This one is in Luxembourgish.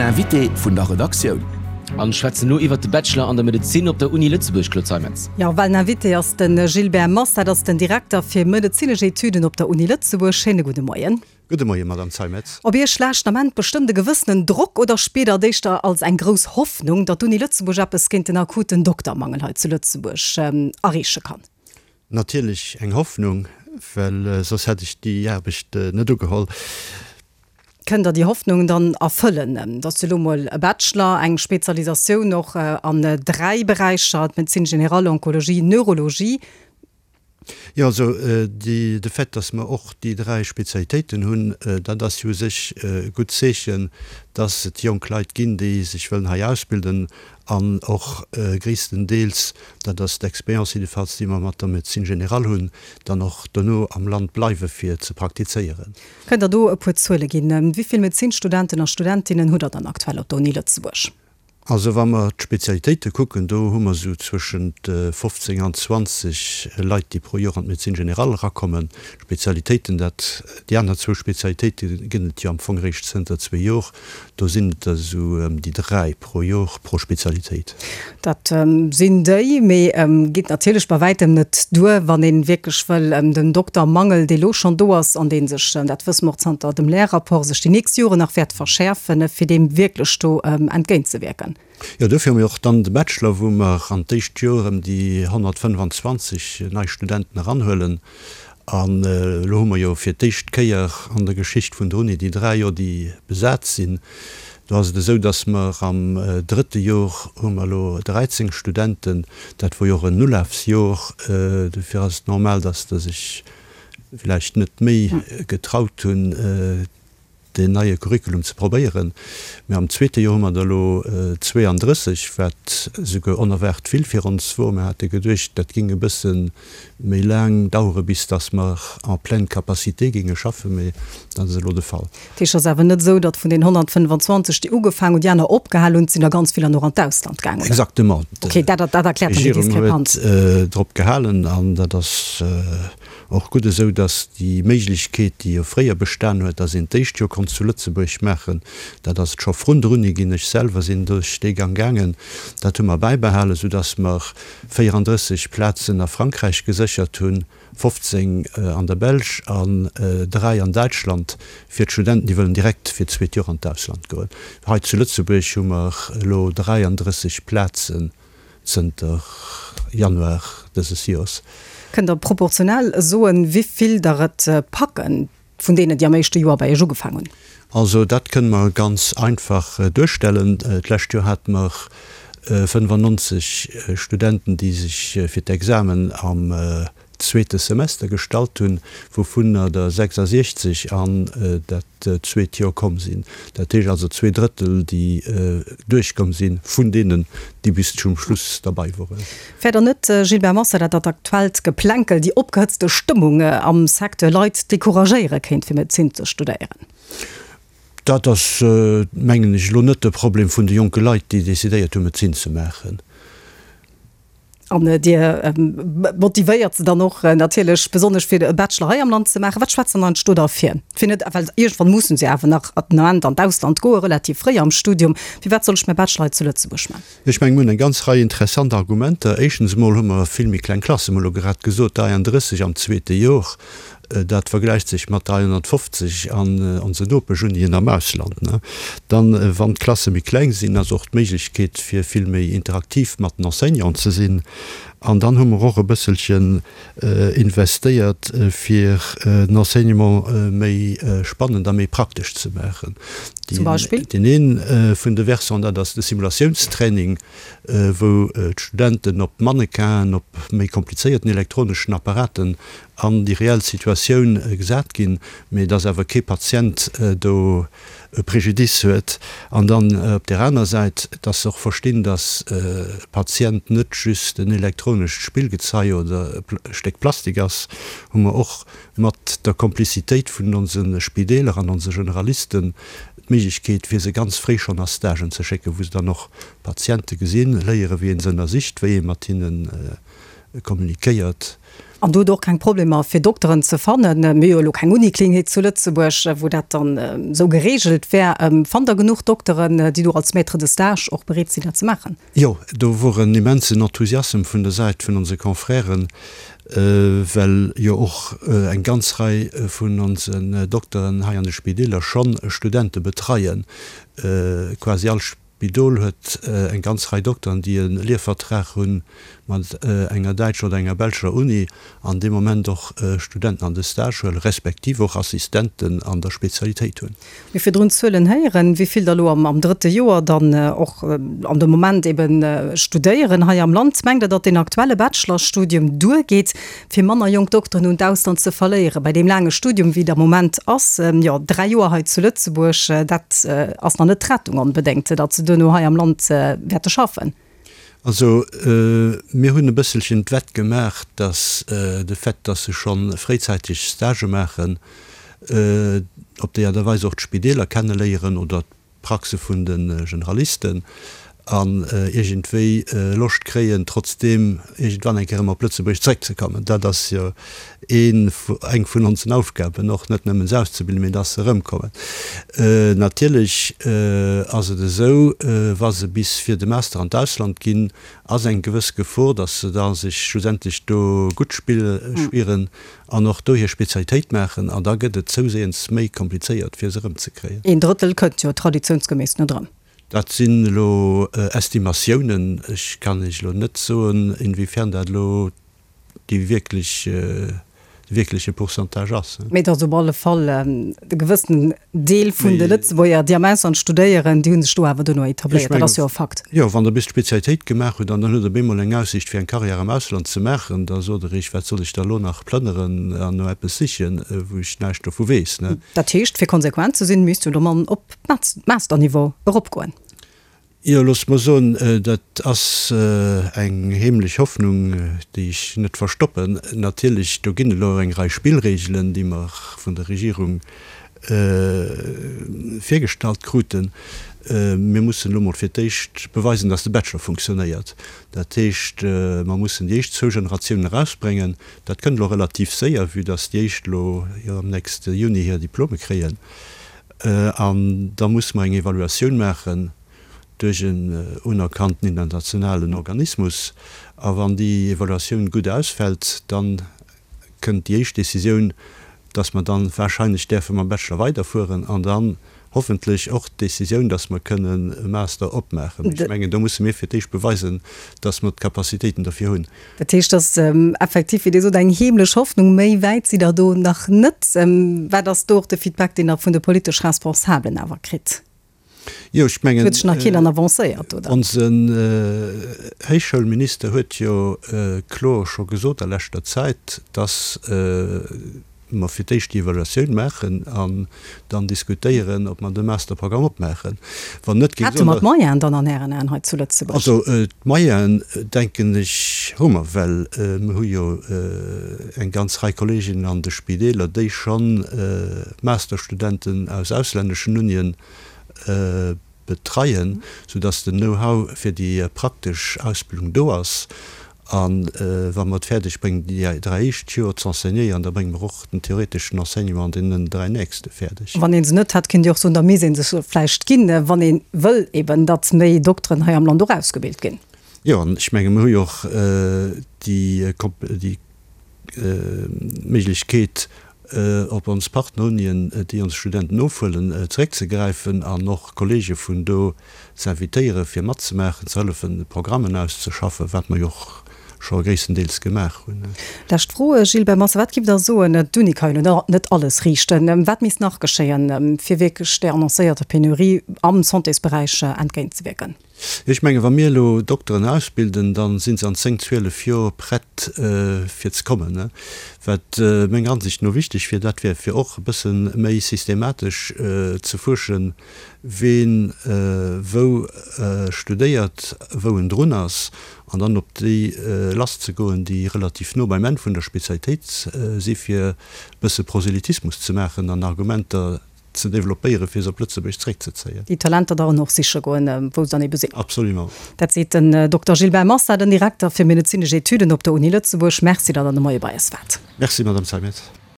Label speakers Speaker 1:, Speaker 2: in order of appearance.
Speaker 1: Invité vun der Redaktioun.
Speaker 2: An schwätzen elo iwwert de Bachelor an der Medezin op der Uni Lëtzebuerg, Claude Zeimetz.
Speaker 3: Jo, well den Invité ass de Gilbert Massa, dat ass den Direkter fir medezinesch Etüden op der Uni Lëtzebuerg. Schéine gudde Moien.
Speaker 4: Gudde Moien, Madame Zeimetz.
Speaker 3: Op Iech laascht den Ament bestëmmt e gewëssenen Drock oder spiert Der et éischter als eng grouss Hoffnung, datt d'Uni Lëtzebuerg eppes géint den akuten Doktermangel hei zu Lëtzebuerg erreeche kann?
Speaker 4: Natierlech eng Hoffnung, well soss hätt ech déi Aarbecht net ugeholl.
Speaker 3: Kënnt Der déi Hoffnung dann erfëllen? Et ass jo elo mol e Bachelor, eng Spezialisatioun och an 3 Beräicher, d'Médecine générale, Onkologie, Neurologie.
Speaker 4: Jo, also déi, de Fait, dass mer och déi 3 Spezialitéiten hunn, dat ass jo u sech e gutt Zeechen, dass et jonk Leit ginn, déi sech wëllen hei ausbilden an och gréisstendeels, dat ass d'Expérience jiddefalls, déi mer mat der Médecine générale hunn, dann och dono am Land bleiwe fir ze praktizéieren.
Speaker 3: Kënnt Der do e puer Zuele ginn? Wéi vill Medezinstudenten a studentinnen hutt Der dann aktuell op der Uni Lëtzebuerg?
Speaker 4: Also wa mer d'Spezialitéite kucken, do hu mer esou zwëschent 15 an 20 Leit, déi pro Joer an d'Médecine générale erakommen. D'Spezialitéiten, dat, déi aner zwou Spezialitéite gëtt et jo am Fong eréischt zënter zwee Jor, do sinn et der esou ëm déi dräi pro Jor pro Spezialitéit.
Speaker 3: Dat sinn déi, mee geet natierlech bei wäitem net duer, wann ee wierklech wëll den Doktermangel, dee lo schonn do ass an dee sech, dat wësse mer och zanter dem Lehrrapport, sech déi nächst Joren nach wäert verschäerfen, fir deem wierklech do entgéintzewierken.
Speaker 4: Jo, dofir hu mir och dann de Bachelor, wou mer an d'éischt Joer ëm déi 125 nei Studenten eranhuelen. An elo hu mer jo fir d'éischt Kéier an der Geschicht vun der Uni déi 3 Joer, déi besat sinn. Do ass et esou, datt mer am drëtte Jor hu mer elo 13 Studenten. Dat wor jo och en Ulafsjor. Dofir ass et normal, datt der sech villäicht net méi getraut hunn, deen neie Curriculum ze probéieren. Mä am zweete Joer hu mer der elo 32, wat esouguer onerwaart vill fir ons wor. Mir hate geduecht, dat géing e bësse méi laang dauere bis datt mer en pleine capacité géinge schaffen, mä dat ass elo de Fall.
Speaker 3: Dat heescht, et ass awer net esou, datt vun den 125, déi ugefaangen hunn, déi aner opgehal hunn, et sinn der ganz vill dann och an d'Ausland gaangen, oder?
Speaker 4: Exactement.
Speaker 3: Okay, dat dat erkläert dann déi
Speaker 4: D'Regierung
Speaker 3: Diskrepanz.
Speaker 4: huet drop gehalen an dat ass Och gutt esou, dass déi Méiglechkeet, déi jo fréier bestan huet, dass een d'éischt Joer konnt zu Lëtzebuerg maachen, dat ass et scho vrun der Uni ginn. Ech selwer sinn duerch dee Gang gaangen. Dat hu mer bäibehalen, soudass mer 34 Plazen a Frankräich geséchert hunn, 15 an der Belsch an 3 an Däitschland fir d'Studenten, déi wëllen direkt fir d'zweet Joer an d'Ausland goen. Hei zu Lëtzebuerg hu mer elo 33 Plazen. Zënter Januar dëses Joers.
Speaker 3: Kënnt Der proportionell soen, wéi vill der et packen, vun deenen, déi am éischte Joer bei Iech ugefaang hunn?
Speaker 4: Also dat kënne mer ganz einfach duerstellen. D'lescht Joer hate mer 95 Studenten, déi sech fir d'Examen am zweete Semester gestallt hunn, wouvunner der 66 an dat zweet Joer komm sinn. Dat heescht also zweeDrëttel, déi duerchkomm sinn, vun deenen, déi bis zum Schluss derbei woren.
Speaker 3: Fäert Der net, Gilbert Massa, datt dat aktuellt Geplänkel, déi opgehëtzte Stëmmung am Secteur Leit decouragéiere kéint, fir Medezin ze studéieren?
Speaker 4: Dat ass, mengen ech, elo net de Problem vun de jonke Leit, déi decidéiert hunn, Medezin ze maachen.
Speaker 3: An Dir motivéiert se dann och natierlech besonnesch fir e Bachelor hei am Land ze maachen. Wat schwätzt dann eigentlech do derfir? Fir net, well iergendwann mussen se awer nach den Ament an d'Ausland goen, relativ fréi am Studium. Firwat soll ech mäi Bachelor hei zu Lëtzebuerg maachen?
Speaker 4: Ech mengen, mir hunn eng ganz Rei interessant Argumenter. Éischtens emol hu mer vill méi kleng Klassen. Mir hu elo grad gesot, 33 am zweete Jor. Dat vergläicht sech mat 350 an onsen Nopeschunien am Ausland. Dann, wann d'Klasse méi kleng sinn, ass och d'Méiglechkeet fir vill méi interaktiv mat den Enseignanten ze sinn. An dann hu mer och e bësselchen investéiert, fir den Enseignement méi spannend a méi praktesch ze maachen.
Speaker 3: Zum Beispill?
Speaker 4: Deen ee vun de Versants, dat ass de Simulatiounstraining, wou d'Studenten op Mannequinen, op méi komplizéierten elektroneschen Apparaten an déi reell Situatioun gesat ginn, mee dass awer kee Patient do e Préjudice huet. An dann op där aner Säit, dass se och verstinn, dass e Patient net just en elektronescht Spillgezei oder e Stéck Plastik ass, hu mer och mat der Komplizitéit vun onse Spideeler an onse Generalisten d'Méiglechkeet, fir se ganz fréi schonn a Stagen ze schécken, wou se dann och Patiente gesinn, léieren, wéi ee se ënnersicht, wéi ee mat hinnen. kommunikéiert.
Speaker 3: An do hutt Der och keng Problemer fir Dokteren ze fannen? Mir hu jo elo keng Uniklinik zu Lëtzebuerg, wou dat dann esou geregelt wär. Fannt Der genuch Dokteren, déi do als Maître de stage och bereet sinn, dat ze maachen?
Speaker 4: Jo, do wor en immensen Enthusiassem vun der Säit vun onse Confrèren, well jo och eng ganz Rei vun onsen Dokteren hei an de Spideeler schonn Studente betreien. Quasi all Spidol huet eng ganz Rei Dokteren, déi e Lehrvertrag hu mat enger däitscher oder enger belscher Uni an dee Moment och Studenten an de Stage huelen, respektiv och Assistenten an der Spezialitéit hunn.
Speaker 3: Mir virdrun d'Zuelen héieren, wéi vill der elo am drëtte Joer dann och an de Moment ebe studéieren hei am Land. Mengt Der, datt deen aktuelle Bachelorstudium duergeet, fir manner jonk Dokteren un d'Ausland ze verléieren? Bei deem laange Studium, wéi et am Moment ass, jo 3 Joer hei zu Lëtzebuerg, dat ass nach net d'Rettung onbedéngt, datt se duerno hei am Land wäerte schaffen.
Speaker 4: Also mir hunn e bësselchen d'Wett gemaach, datt de Fait, datt se scho fréizäiteg Stagë maachen, op déi Aart a Weis och d'Spideeler kenneléieren oder d'Praxe vun de Generalisten an iergendwéi Loscht kréien, trotzdeem iergendwann eng Kéier erëm op Lëtzebuerg zeréckzekommen. Dat ass jo een, eng vun onsen Aufgaben, och net nëmmen se auszebilden, mee dass se erëmkommen. Natierlech ass et esou, wa se bis fir de Master an d'Ausland ginn, ass eng gewëss Gefor, dass se da sech schlussendlech do gutt spieren an och do hir Spezialitéit maachen, an da gëtt et zouséiends méi komplizéiert, fir se erëmzekréien.
Speaker 3: Een Drëttel kënnt jo traditiounsgeméiss net erëm.
Speaker 4: Dat sinn elo Estimatiounen. Ech kann Iech elo net soen, inwiefern dat elo déi wierklech, de wierkleche Pourcentage ass.
Speaker 3: Mee et ass op alle Fall e gewëssenen Deel vun de Lëtzebuerger, déi am Ausland studéieren, déi hu sech do awer duerno etabléiert. Dat ass jo e Fakt.
Speaker 4: Jo, wann Der bis d'Spezialitéit gemaach hutt an dann hutt Der op eemol eng Aussiicht fir eng Carrière am Ausland ze maachen, da sot Der Iech, wat soll ech da elo nach plënneren an no eppes sichen, wou ech näischt dovu weess, ne?
Speaker 3: Dat heescht, fir konsequent ze sinn, misst jo de Mann op Masterniveau eropgoen.
Speaker 4: Jo, loosst mer soen, dat ass eng heemlech Hoffnung, déi ech net verstoppen. Natierlech, do ginn elo eng Rei Spillregelen, déi mer vun der Regierung virgestallt kruten. Mir mussen elo mol fir d'éischt beweisen, dass de Bachelor funktionéiert. Dat heescht, mer mussen déi éischt zwou Generatiounen erausbréngen. Dat kënnt elo relativ séier, vue dass déi éischt elo jo am nächste Juni hir Diplome kréien. An da musse mer eng Evaluatioun maachen duerch en unerkannten internationalen Organismus. A wann déi Evaluatioun gutt ausfält, da kënnt déi éischt Décisioun, dass mer dann wahrscheinlech däerfe mam Bachelor weiderfueren an dann hoffentlech och d'Décisioun, dass mer kënnen e Master opmaachen. Mee ech mengen, do musse mir fir d'éischt beweisen, dass mer d'Capacitéiten derfir hunn.
Speaker 3: Dat heescht, dass effektiv, wéi Dir sot, eng heemlech Hoffnung. Méi wäit sidd Der do nach net. Wat ass do och de Feedback, deen Der vun de politesch Responsabelen awer kritt?
Speaker 4: Jo, ech mengen,
Speaker 3: Huet sech nach keen dann avancéiert, oder?
Speaker 4: Onsen Héichschoulminister huet jo kloer scho gesot a leschter Zäit, dass mer fir d'éischt déi Evaluatioun maachen an dann diskutéieren, ob mer de Masterprogramm opmaachen.
Speaker 3: Wann net, géing ech soen, Hätte mer d'Moyenen dann an Ären Aen hei zu Lëtzebuerg?
Speaker 4: Also d'Moyenen, denken ech, hu mer, well mer hu jo eng ganz Rei Kolleeginnen an de Spideeler, déi scho Masterstudenten aus auslänneschen Unien betreien, soudass den Know-how fir déi praktesch Ausbildung do ass. A wa mer et fäerdeg bréngen, déi 3 éischt Joer z'enseignéieren, da brénge mer och den theoreteschen Enseignement an deenen 3 nächste fäerdeg.
Speaker 3: Wann ee se net hätt, kéint Dir och soen, da misst ee sech vläicht ginn, wann ee wëll eben, datt méi Dokteren hei am Land och ausgebilt ginn.
Speaker 4: Jo, an ech menge mer hu jo och déi Méiglechkeet, op ons Partnerunien, déi ons Studenten ofhuelen, zeréckzegräifen an och Kollege vun do z'invitéieren, fir matzemaachen, ze hëllefen, Programmen auszeschaffen, wat mer jo och scho gréisstendeels gemaach hunn.
Speaker 3: Lescht Fro, Gilbert Massa, Wat giff Der soen, d'Uni ka jo net alles riichten, wat misst nach geschéien, fir wierklech där annoncéierter Penurie am Santésberäich entgéintzewierken?
Speaker 4: Ech mengen, wa mir elo Dokteren ausbilden, da si se an 10, 12 Joer prett fir ze kommen. Wat menger Ansicht no wichteg wier, dat wär fir och e bësse méi systematesch ze fuerschen, ween wou studéiert, wou en drun ass, an dann op déi lasszegoen, déi relativ no beim Enn vun der Spezialitéit si fir e bësse Proselytismus ze maachen an Argumenter. ze développéieren, fir se op Lëtzebuerg zeréckzezéien.
Speaker 3: Déi Talenter dann och siche goen, wou se dann ebe sinn.
Speaker 4: Absolument.
Speaker 3: Dat seet den Dokter Gilbert Massa, den Direkter fir medezinesch Etüden op der Uni Lëtzebuerg. Merci, datt Der de Moie bei eis waart.
Speaker 4: Merci, Madame Zeimetz.